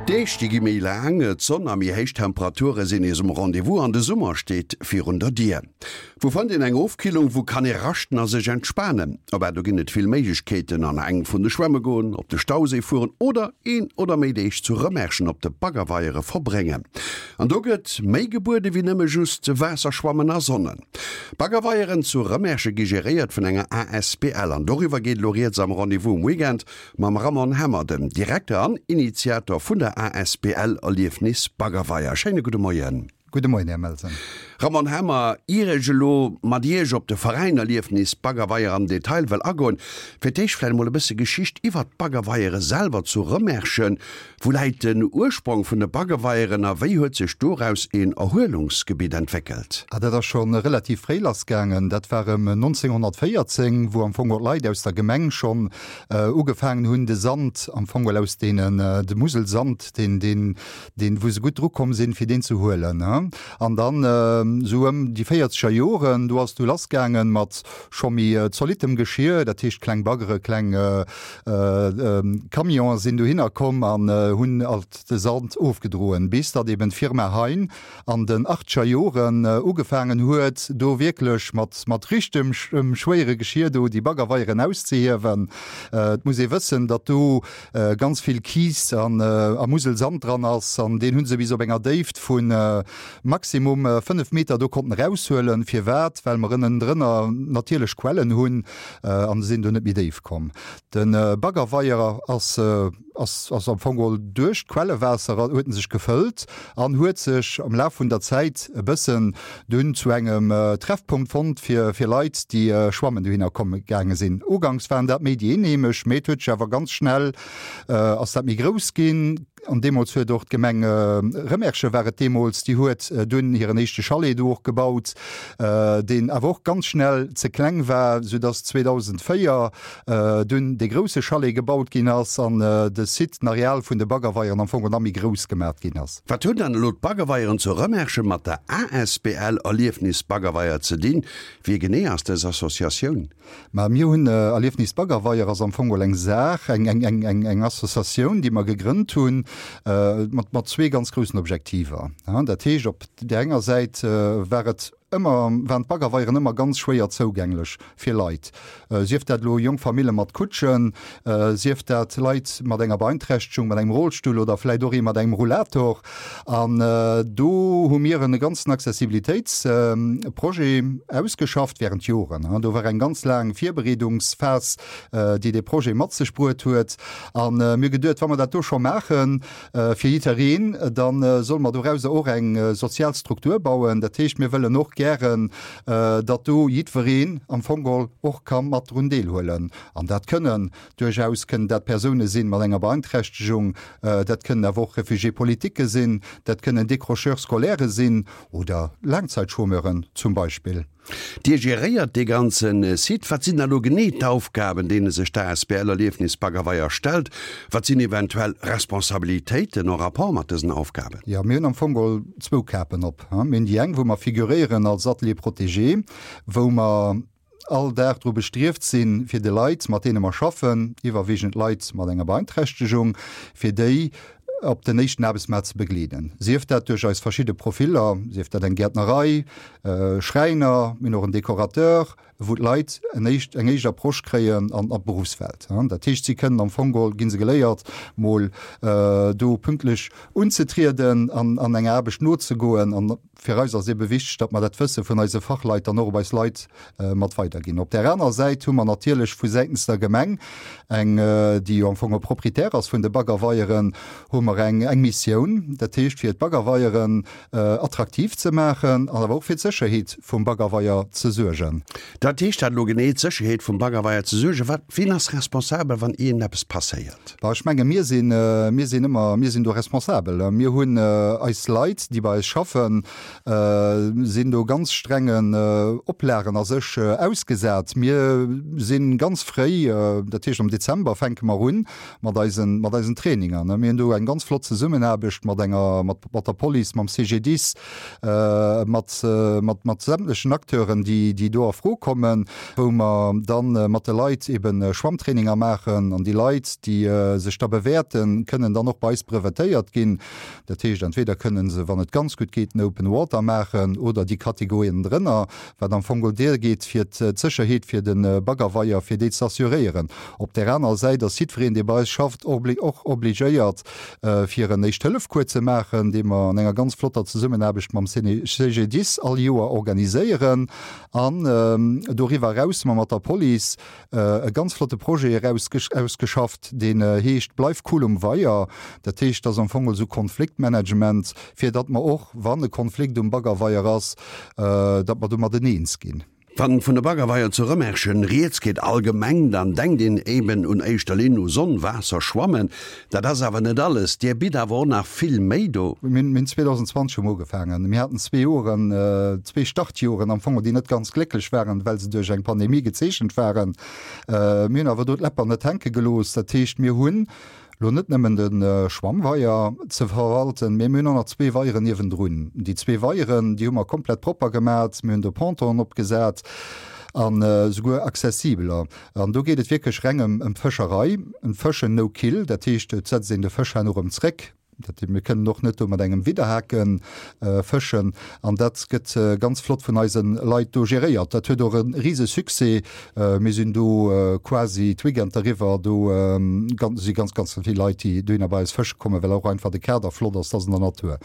D'Deeg déi gi méi laang, d'Sonn a méi héich Temperature sinn nees um Rendez-vous an de Summer steet virun der Dier. Wou fënnt een eng Ofkillung, wou kann ee raschten a sech entspanen? Abah do ginn et vill Méiglechkeeten, an eng vun de Schwämme goen, op de Stauséi fueren oder een oder méi Deeg zu Rëmerschen op de Baggerweiere verbréngen. An do gëtt méi gebuede wéi nëmme just Waasserschwammen a Sonnen. D'Baggerweieren zu Rëmersche gi geréiert vun enger asbl an doriwwer geet elo rieds am Rendez-vous um Weekend mam Ramon Hemmer, dem Direkter an Initiator vun der asbl Erliefnis Baggerweier. Schéine gudde Moien. Gudde Moien, Här Melsen. Ramon Hemmer, ier ech elo mat Iech op de Veräin Erliefnis Baggerweier am Detail wëll agoen, fir d'éischt vläicht emol e bësse Geschicht iwwert d'Baggerweiere selwer zu Rëmerschen. Wou läit den Ursprong vun de Baggeweieren a wéi huet sech doraus een Erhuelungsgebitt entwéckelt? Ah, dat ass scho relativ fréi lassgaangen. Dat war ëm 1914, wou am Fong och d'Leit aus der Gemeng schonn ugefaangen hunn, de Sand am Fong aus deenen, de Muselsand, deen, deen, deen, wou se gutt drukomm sinn, fir deen ze huelen. An dann esou ëm déi véierzeger Joren, do ass du lassgaangen mat scho méi zolittem Geschir, dat heescht kleng Baggere, kleng Camionen sinn dohinner komm an hunn alt de Sand ofgedroen, bis datt eben d'Firma Hein an den achtscher Joren ugefaangen huet, do wierklech mat mat richtem schwéiere Geschir do déi Baggerweieren auszehiewen. Et muss ee wëssen, datt do ganz vill Kiis an a Muselsand dran ass an deen hu se bis op enger Déift vu maximum 5 Meter do konnten eraushuelen. Firwat? Well mer ënnendrënner natierlech Quellen hunn an se sinn do net méi déif komm. De Baggerweier ass ass ass am Fong geholl duerch d'Quellewaasser huet en sech gefëllt an huet sech am Laf vun der Zäit e bëssen dunn zu engem Treffpunkt fonnt fir fir Leit déi schwammen dohinner komme gaange sinn. Uganks waren dat méi déi Eenheemesch, mee et huet sech awer ganz schnell ass dat méi grouss ginn. An deemools huet och d'Gemeng Rëmerschen, war et deemools, déi huet dunn hiren éischte Chalet do och gebaut, deen awer och ganz schnell ze kleng war, soudass 2004 dunn dee grousse Chalet gebaut ginn ass an de Site, den Areal vun de Baggerweieren am Fong nach méi grouss gemat ginn ass. Wat hunn dann elo d'Baggerweieren zu Rëmerschen mat der asbl Erliefnis Baggerweier ze dinn? Wie genee ass dës Associatioun? Mä mir hunn Erliefnis Baggerweier ass am Fong geholl eng Saach, eng, eng, eng, eng, eng Associatioun, déi mer gegrënnt hunn, mat, mat zwee ganz groussen Objektiver. Dat heescht, op där enger Säit war et ëmmer, waren d'Baggerweieren ëmmer ganz schwéier zougänglech fir Leit, sief dat elo jonk Famille mat Kutschen, sief dat Leit mat enger Beeinträchtegung, mat engem Rollstull oder vläicht och ee mat engem Rollator. An do hu mir e ganzen Accessibilitéitsprojet ausgeschafft während Joren. Do war eng ganz laang Virbereedungsphas, déi dee Projet mat sech bruet huet. A mir hu geduet, wa mer dat do scho maache fir jiddereen, da solle mer dorauser och eng sozial Struktur bauen. Dat heescht, mir wëllen och gären, datt do jiddwereen am Fong geholl och ka mat drun deelhuelen. An dat kënnen Duerchaus kënnen dat Persoune sinn mat enger Beeinträchtegung, dat kënnen awer och Réfugiés politiques sinn, dat kënnen Décrocheurs scolaires sinn oder Laangzeitchômeuren zum Beispill. Dir geréiert dee ganze Site. Wat sinn da lo genee d'Aufgaben, deene sech d'ASBL Erliefnis Baggerweier stellt? Wat sinn eventuell Responsabilitéiten en rapport mat dësen Aufgaben? Jo, mir hunn am Fong geholl zwou Kapen op. Mir hunn déi eng, wou mer figuréieren als Atelier protégé, wou mer all Dag dru bestrieft sinn, fir de Leit, mat deene mer schaffen, iwwerwiegend Leit mat enger Beeinträchtegung, fir déi op den éischten Aarbechtsmaart ze begleeden, sief dat duerch eis verschidde Profiller, sief dat eng Gäertnerei, Schräiner, mir hunn och en Decorateur, wou d'Leit en éischt, eng éischt Approche kréien an d'Beruffswelt. Dat heescht, si kënnen am Fong geholl, gi se geléiert, mol do pünktlech unzetrieden an an enger Aarbecht nozegoen. An Fir eis ass ebe wichteg, datt mer dat Wësse vun eise Fachleit dann och op eis Leit mat weiderginn. Op där anerer Säit hu mer natierlech vu säitens der Gemeng, eng, déi jo am Fong och Proprietär ass vun de Baggerweieren, hu mer eng, eng Missioun, dat heescht fir d'Baggerweieren attraktiv ze maachen an awer och fir d'Sécherheet vum Baggerweier ze suergen. Dat heescht dat elo genee, d'Sécherheet vum Baggerweier ze suergen? Wat, wien ass responsabel, wann iergendeppes passéiert? Bah, ech menge mir sinn, mir sinn ëmmer, mir sinn do responsabel. Mir hunn eis Leit, déi bei eis schaffen. Sinn do ganz strengen Oplagen a sech ausgesat. Mir si ganz fréi, dat heescht am Dezember fänke mer un mat eisen, mat eisen Traininger. Mir hunn do eng ganz flott Zesummenaarbecht mat enger, mat, mat der Police, mam CGDIS, mat, mat, mat sämtlechen Acteuren, déi, déi do a Fro kommen, wou mer dann mat de Leit eben Schwammtraininger maachen. An déi Leit, déi sech da bewäerten, kënnen dann och bei eis brevetéiert ginn. Dat heescht, entweder kënnen se, wann et ganz gutt geet, den Open Water maachen oder déi Kategorien drënner, wat am Fong geholl geet, fir d'Sécherheet fir de Baggerweier, fir déi ze assuréieren. Op där anerer Säit ass jiddwereen, dee bei eis schafft, och obligéiert, fir en Éischt-Hëllef-Cours ze maachen, dee mer an enger ganz flotter Zesummenaarbecht mam CGDIS all Joer organiséieren. An doriwwer eraus hu mer mat der Police e ganz flotte Projet eraus ausgeschafft, deen heescht Bleif cool um Weier. Dat heescht, dat ass am Fong esou Konfliktmanagement, fir datt mer och, wann e Konflikt um Baggerweier ass, datt mer domadden eens ginn. Wann vun de Baggerweier zu Rëmerschen rieds geet allgemeng, dann denkt een eben un éischter Linn u Sonn, Waasser, Schwammen. Dat ass awer net alles, Dir bitt awer och nach vill méi do. Mir hunn 2020 hu mer ugefaangen. Mir haten zwee Joren, zwee Startjoren am Fong, déi net ganz glécklech waren, well se duerch eng Pandemie gezeechent waren. Mir hunn awer do d'Läpper net hänke gelooss. Dat heescht, mir hunn elo net nëmmen de Schwammweier ze verwalten, mee mir hunn och nach zwee Weieren niewendrun. Déi zwee Weieren, déi hu mer komplett propper gemat. Mir hunn do Pontonen opgesat an esouguer accessibeler. An do geet et wierklech reng ëm d'Fëscherei, ëm d'Fëschen no kill, dat heescht, et setzt een de Fësch herno erëm zréck. Dat heescht, mir kënnen och net do mat engem Widderhake fëschen. An dat gëtt ganz flott vun eise Leit do geréiert. Dat huet och e rise Succès. Mir sinn do quasi d'Weekender eriwwer, do si ganz, ganz vill Leit, déi dohinner bei eis fësche kommen, well och einfach de Kader flott ass, dat ass an der Natur.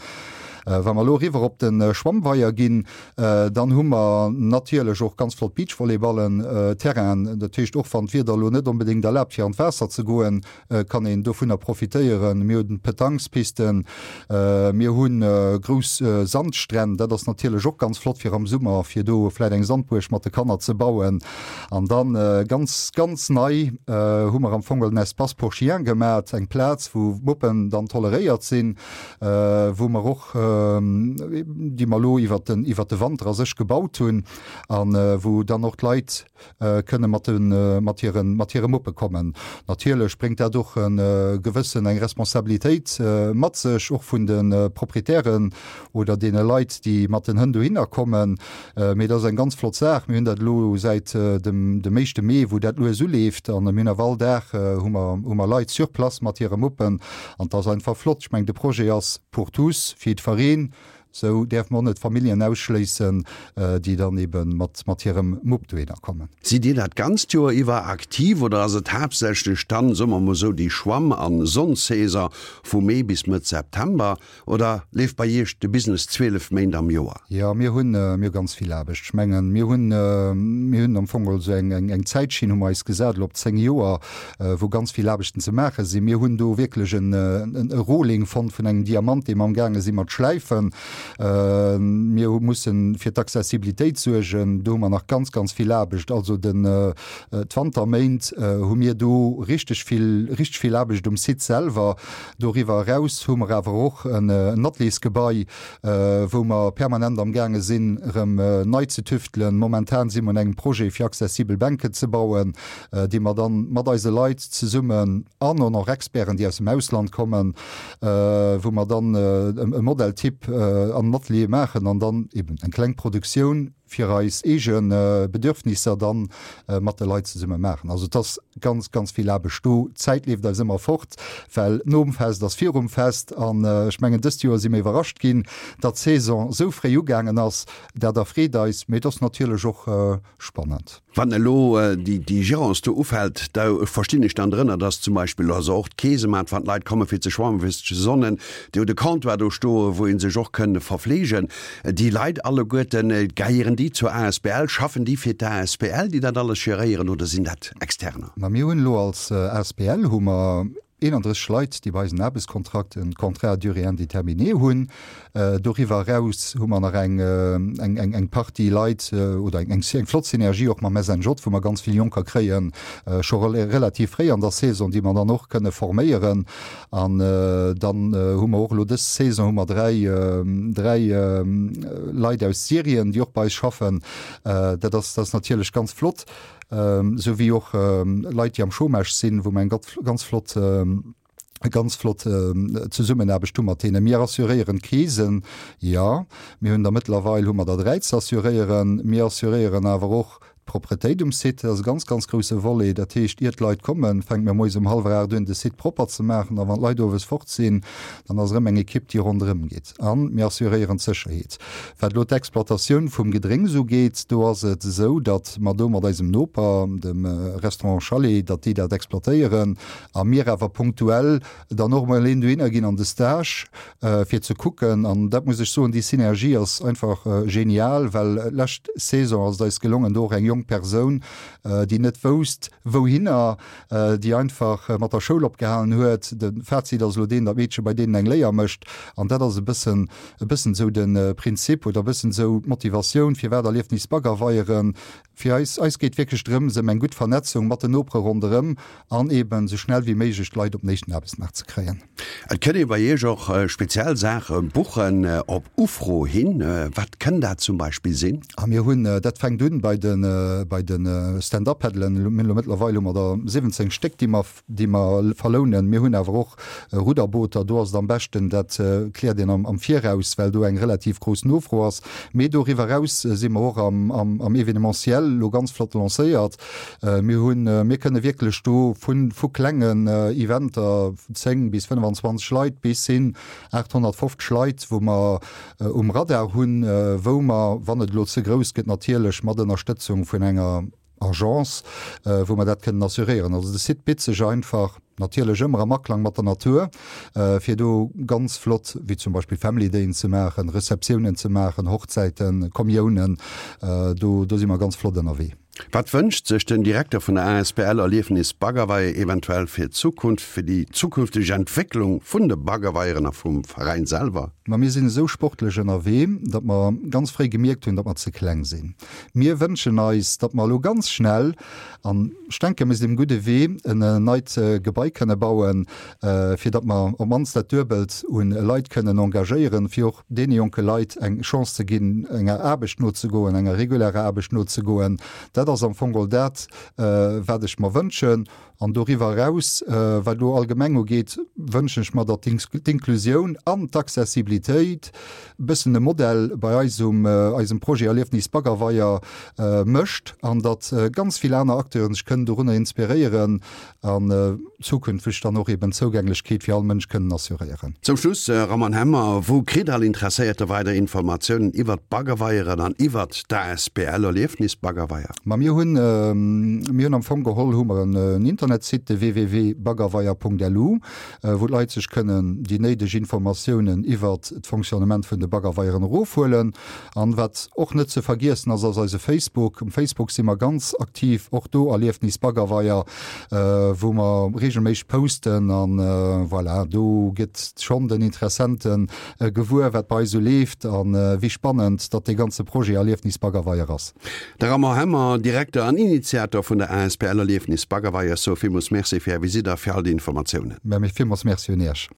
Wa mer elo eriwwer op de Schwammweier ginn, Dann hu mer natierlech och ganz flott Beachvolleyballen-Terrainen. Dat heescht, och wann d'Wieder elo net onbedéngt erlaabt fir an d'Waasser ze goen, kann een dovunner profitéieren. Mir hunn Petanquespisten, mir hu grouss Sandstränn. Dat ass natierlech och ganz flott fir am Summer, fir do vläit eng Sandbuerg mat de Kanner ze bauen. An dann ganz, ganz nei hu mer am Fong en Espace pour chiens gemat, eng Plaz wou Muppen dann toleréiert sinn, wou mer och, déi mer elo iwwert den, iwwert de Wanter a sech gebaut hunn an wou dann och d'Leit kënne mat de, mat hiren, mat hire Muppe kommen. Natierlech bréngt dat och e gewëssen, eng Responsabilitéit mat sech, och vun de Proprietären oder deene Leit, déi mat den Hënn dohinner kommen. Mee dat ass eng ganz flott Saach. Mir hunn dat elo säit dem, dem éischte Mee, wou dat lues uleeft an mir hunn awer all Dag hu mer, hu mer Leit sur place mat hire Muppen an et ass einfach flott. Ech mengen, de Projet ass pour tous, fir jiddwereen. Sou däerfe mer och net Familljen ausschléissen, déi dann ebe mat, mat hirem Mupp dohinner kommen. Sidd Dir dat ganzt Joer iwwer aktiv oder ass et haaptsächlech dann, soe mer mol sou, déi Schwamm an Sonnsaison vu Mee bis Mëtt September? Oder leeft bei Iech de Business 12 Méint am Joer? Jo, mir hunn, mir hu ganz vill Aarbecht. Ech mengen, mir hunn, mir hunn am Fong also eng, eng, eng Zäitschinn hu mer eis gesat elo op 10 Joer, wou ganz vill Aarbechten ze maache sinn. Mir hunn do wierklech en, en, e Rohling fonnt vun engem Diamant, dee mer amgaange si mat schläifen. Mir hu mussen fir d'Accessibilitéit suergen. Do hu mer nach ganz, ganz vill Aarbecht. Also den, d'Wanterméint hu mir do richteg vill, richteg vill Aarbecht um Site selwer. Doriwwer eraus hu mer awer och en Ateliers-Gebai, wou mer permanent am gaange sinn, erëm nei ze tüftelen. Momentan si mer un engem Projet, fir accessibel Bänken ze bauen, déi mer dann mat eise Leit zesummen an och nach Experten, déi aus dem Ausland kommen, wou mer dann e Modell-Type an den Ateliere maachen an dann eben eng kleng Produktioun fir eis eege Bedürfnisser dann mat de Leit zesumme maachen. Also et ass ganz, ganz vill Aarbecht do. D'Zäit leeft eis ëmmer fort, well nom Fest ass virum Fest. An ech mengen, dëst Joer si mir iwwerrascht ginn, datt d'Saison esou fréi ugaangen ass. Dat erfreet eis, mee et ass natierlech och spannend. Wann elo déi Gérance do ufält, da verstinn ech dann drënner, dass zum Beispill also och d'Keesemat, wann d'Leit komme fir ze schwammen, fir sech ze sonnen, déi hu de Comptoir do stoen, wou ee sech och kënn verfleegen. Déi Leit alleguerten, gehéieren déi zur asbl, schaffen déi fir d'asbl, déi dat alles geréieren, oder sinn dat Externer? Ma mir hunn elo als asbl hu mer. 31 Leit, déi bei eis en Aarbechtskontrakt, en Contrat à durée indéterminée hunn. Doriwwer eraus hu mer nach eng, eng, eng, eng Partie Leit oder eng, eng flott Synergie och mam SNJ, wou mer ganz vill Jonker kréien, scho relativ fréi an der Saison, déi mer dann och kënne forméieren. An dann hu mer och elo dës Saison hu mer 3, 3 Leit aus Syrien, déi och bei eis schaffen. Dat ass, dat ass natierlech ganz flott, esou wéi och Leit, déi am Chômage sinn, wou mer eng ganz flott, ganz flott Zesummenaarbecht hu mat deenen. Mir assuréieren d'Krisen, jo. Mir hunn der mëttlerweil hu mer der 3 ze assuréieren. Mir assuréieren awer och d'Propretéit um Site. Dat ass e ganz, ganz grousse Volet. Dat heescht, ier d'Leit kommen, fänke mir moies um hallwer 8 un, de Site propper ze maachen. A wann d'Leit owes fort sinn, dann ass erëm eng Ekipp, déi ronderëm geet. A mir assuréieren d'Sécherheet. Wat elo d'Exploitatioun vum Gedrénks ugeet, do ass et esou, datt mer do mat eisem Noper, dem Restaurant Chalet, datt déi dat exploitéieren a mir awer punktuell dann och emol een dohinner ginn an de Stage, fir ze kucken. An dat muss ech soen, déi Synergie ass einfach genial, well lescht Saison ass et eis gelongen, do och eng jonk Persoun, déi net wousst wouhinner, déi einfach mat der Schoul opgehalen huet. De Fazit ass elo deen, datt d'Meedche bei deenen eng Léier mécht. An dat ass e bëssen, e bëssen esou de Prinzip oder e bëssen esou d'Motivatioun, firwat Erliefnis Baggerweieren Fir eis, eis geet wierklech drëms ëm eng gutt Vernetzung mat den Nopere ronderëm an eben esou schnell wéi méiglech d'Leit op den éischten Aarbechtsmaart ze kréien. Et kënnt ee bei Iech och speziell Saache buchen op Ufro hin. Wat kënn dat zum Beispill sinn? A mir hunn, dat fänkt un bei de, bei de Stand-up-Paddelen, mir hunn elo mëttlerweil hu mer der 17 Stéck, déi mer, déi mer verlounen. Mir hunn awer och Rudderbooter, do ass et am beschten, dat kläert een am Viraus, well do eng relativ grouss Nofro ass. Mee doriwwer eraus si mer och am Événementiel elo ganz flott lancéiert. Mir hunn, mir kënne wierklech do vu vu klengen Eventer, 10 bis 25 Leit, bis hin 850 Leit, wou mer um Radar hunn, wou mer, wann et elo ze grouss gëtt, natierlech mat Ënnerstëtzung vun enger Agence, wou mer dat kënnen assuréieren. Also de Site bitt sech einfach, natierlech ëmmer am Aklang mat der Natur, fir do ganz flott, wéi zum Beispill Family Dayen ze maachen, Receptiounen ze maachen, Hochzäiten, Kommiounen, do do si mer ganz flott ënnerwee. Wat wënscht sech den Direkter vun der asbl Erliefnis Baggerweier eventuell fir d'Zukunft, fir déi zukünfteg Entwécklung vun de Baggerweieren a vum Veräin selwer? Ma mir sinn esou sportlech ënnerwee, datt mer ganz fréi gemierkt hunn, datt mer ze kleng sinn. Mir wënschen eis, datt mer elo ganz schnell, an ech denken, mir sinn um gudde Wee, en neit Gebai kënne bauen, fir datt mer op d'mannst dat Duebelt u Leit kënnen engagéieren, fir och deene jonke Leit eng Chance ze ginn, enger Aarbecht nozegoen, enger regulärer Aarbecht nozegoen. Dat ass am Fong geholl dat, wat ech mer wënschen. An doriwwer eraus, wat elo allgemeng ugeet, wënschen ech mer, datt d'Inklusioun an d'Accessibilitéit e bëssen e Modell bei eis um eisem Projet Erliefnis Baggerweier mécht an datt ganz vill aner Acteuren sech kënnen dorunner inspiréieren an zukünfteg dann och eben d'Zougänglechkeet fir all Mënsch kënnen assuréieren. Zum Schluss, Roman Hemmer, wou kritt all Interesséierte weider Informatiounen iwwert d'Baggerweieren an iwwert d'ASBL Erliefnis Baggerweier? Ma mir hunn, mir hunn am Fong geholl hu mer en Internetsite, de www.baggerweier.lu, wou d'Leit sech kënnen déi néideg Informatiounen iwwert d'Fonctionnement vun de Baggerweieren erofhuelen. An wat och net ze vergiessen ass, ass eise Facebook. Um Facebook si mer ganz aktiv, och do Erliefnis Baggerweier, wou mer reegelméisseg posten. An voilà, do gëtt schonn den Interessente gewuer, wat bei eis esou leeft a wéi spannend datt dee ganze Projet Erliefnis Baggerweier ass. De Raymond Hemmer, Direkter an Initiator vun der asbl Erliefnis Baggerweier, sou villmools Merci fir Är Visitt a fir all déi Informatiounen. Mä villmools Merci un Iech.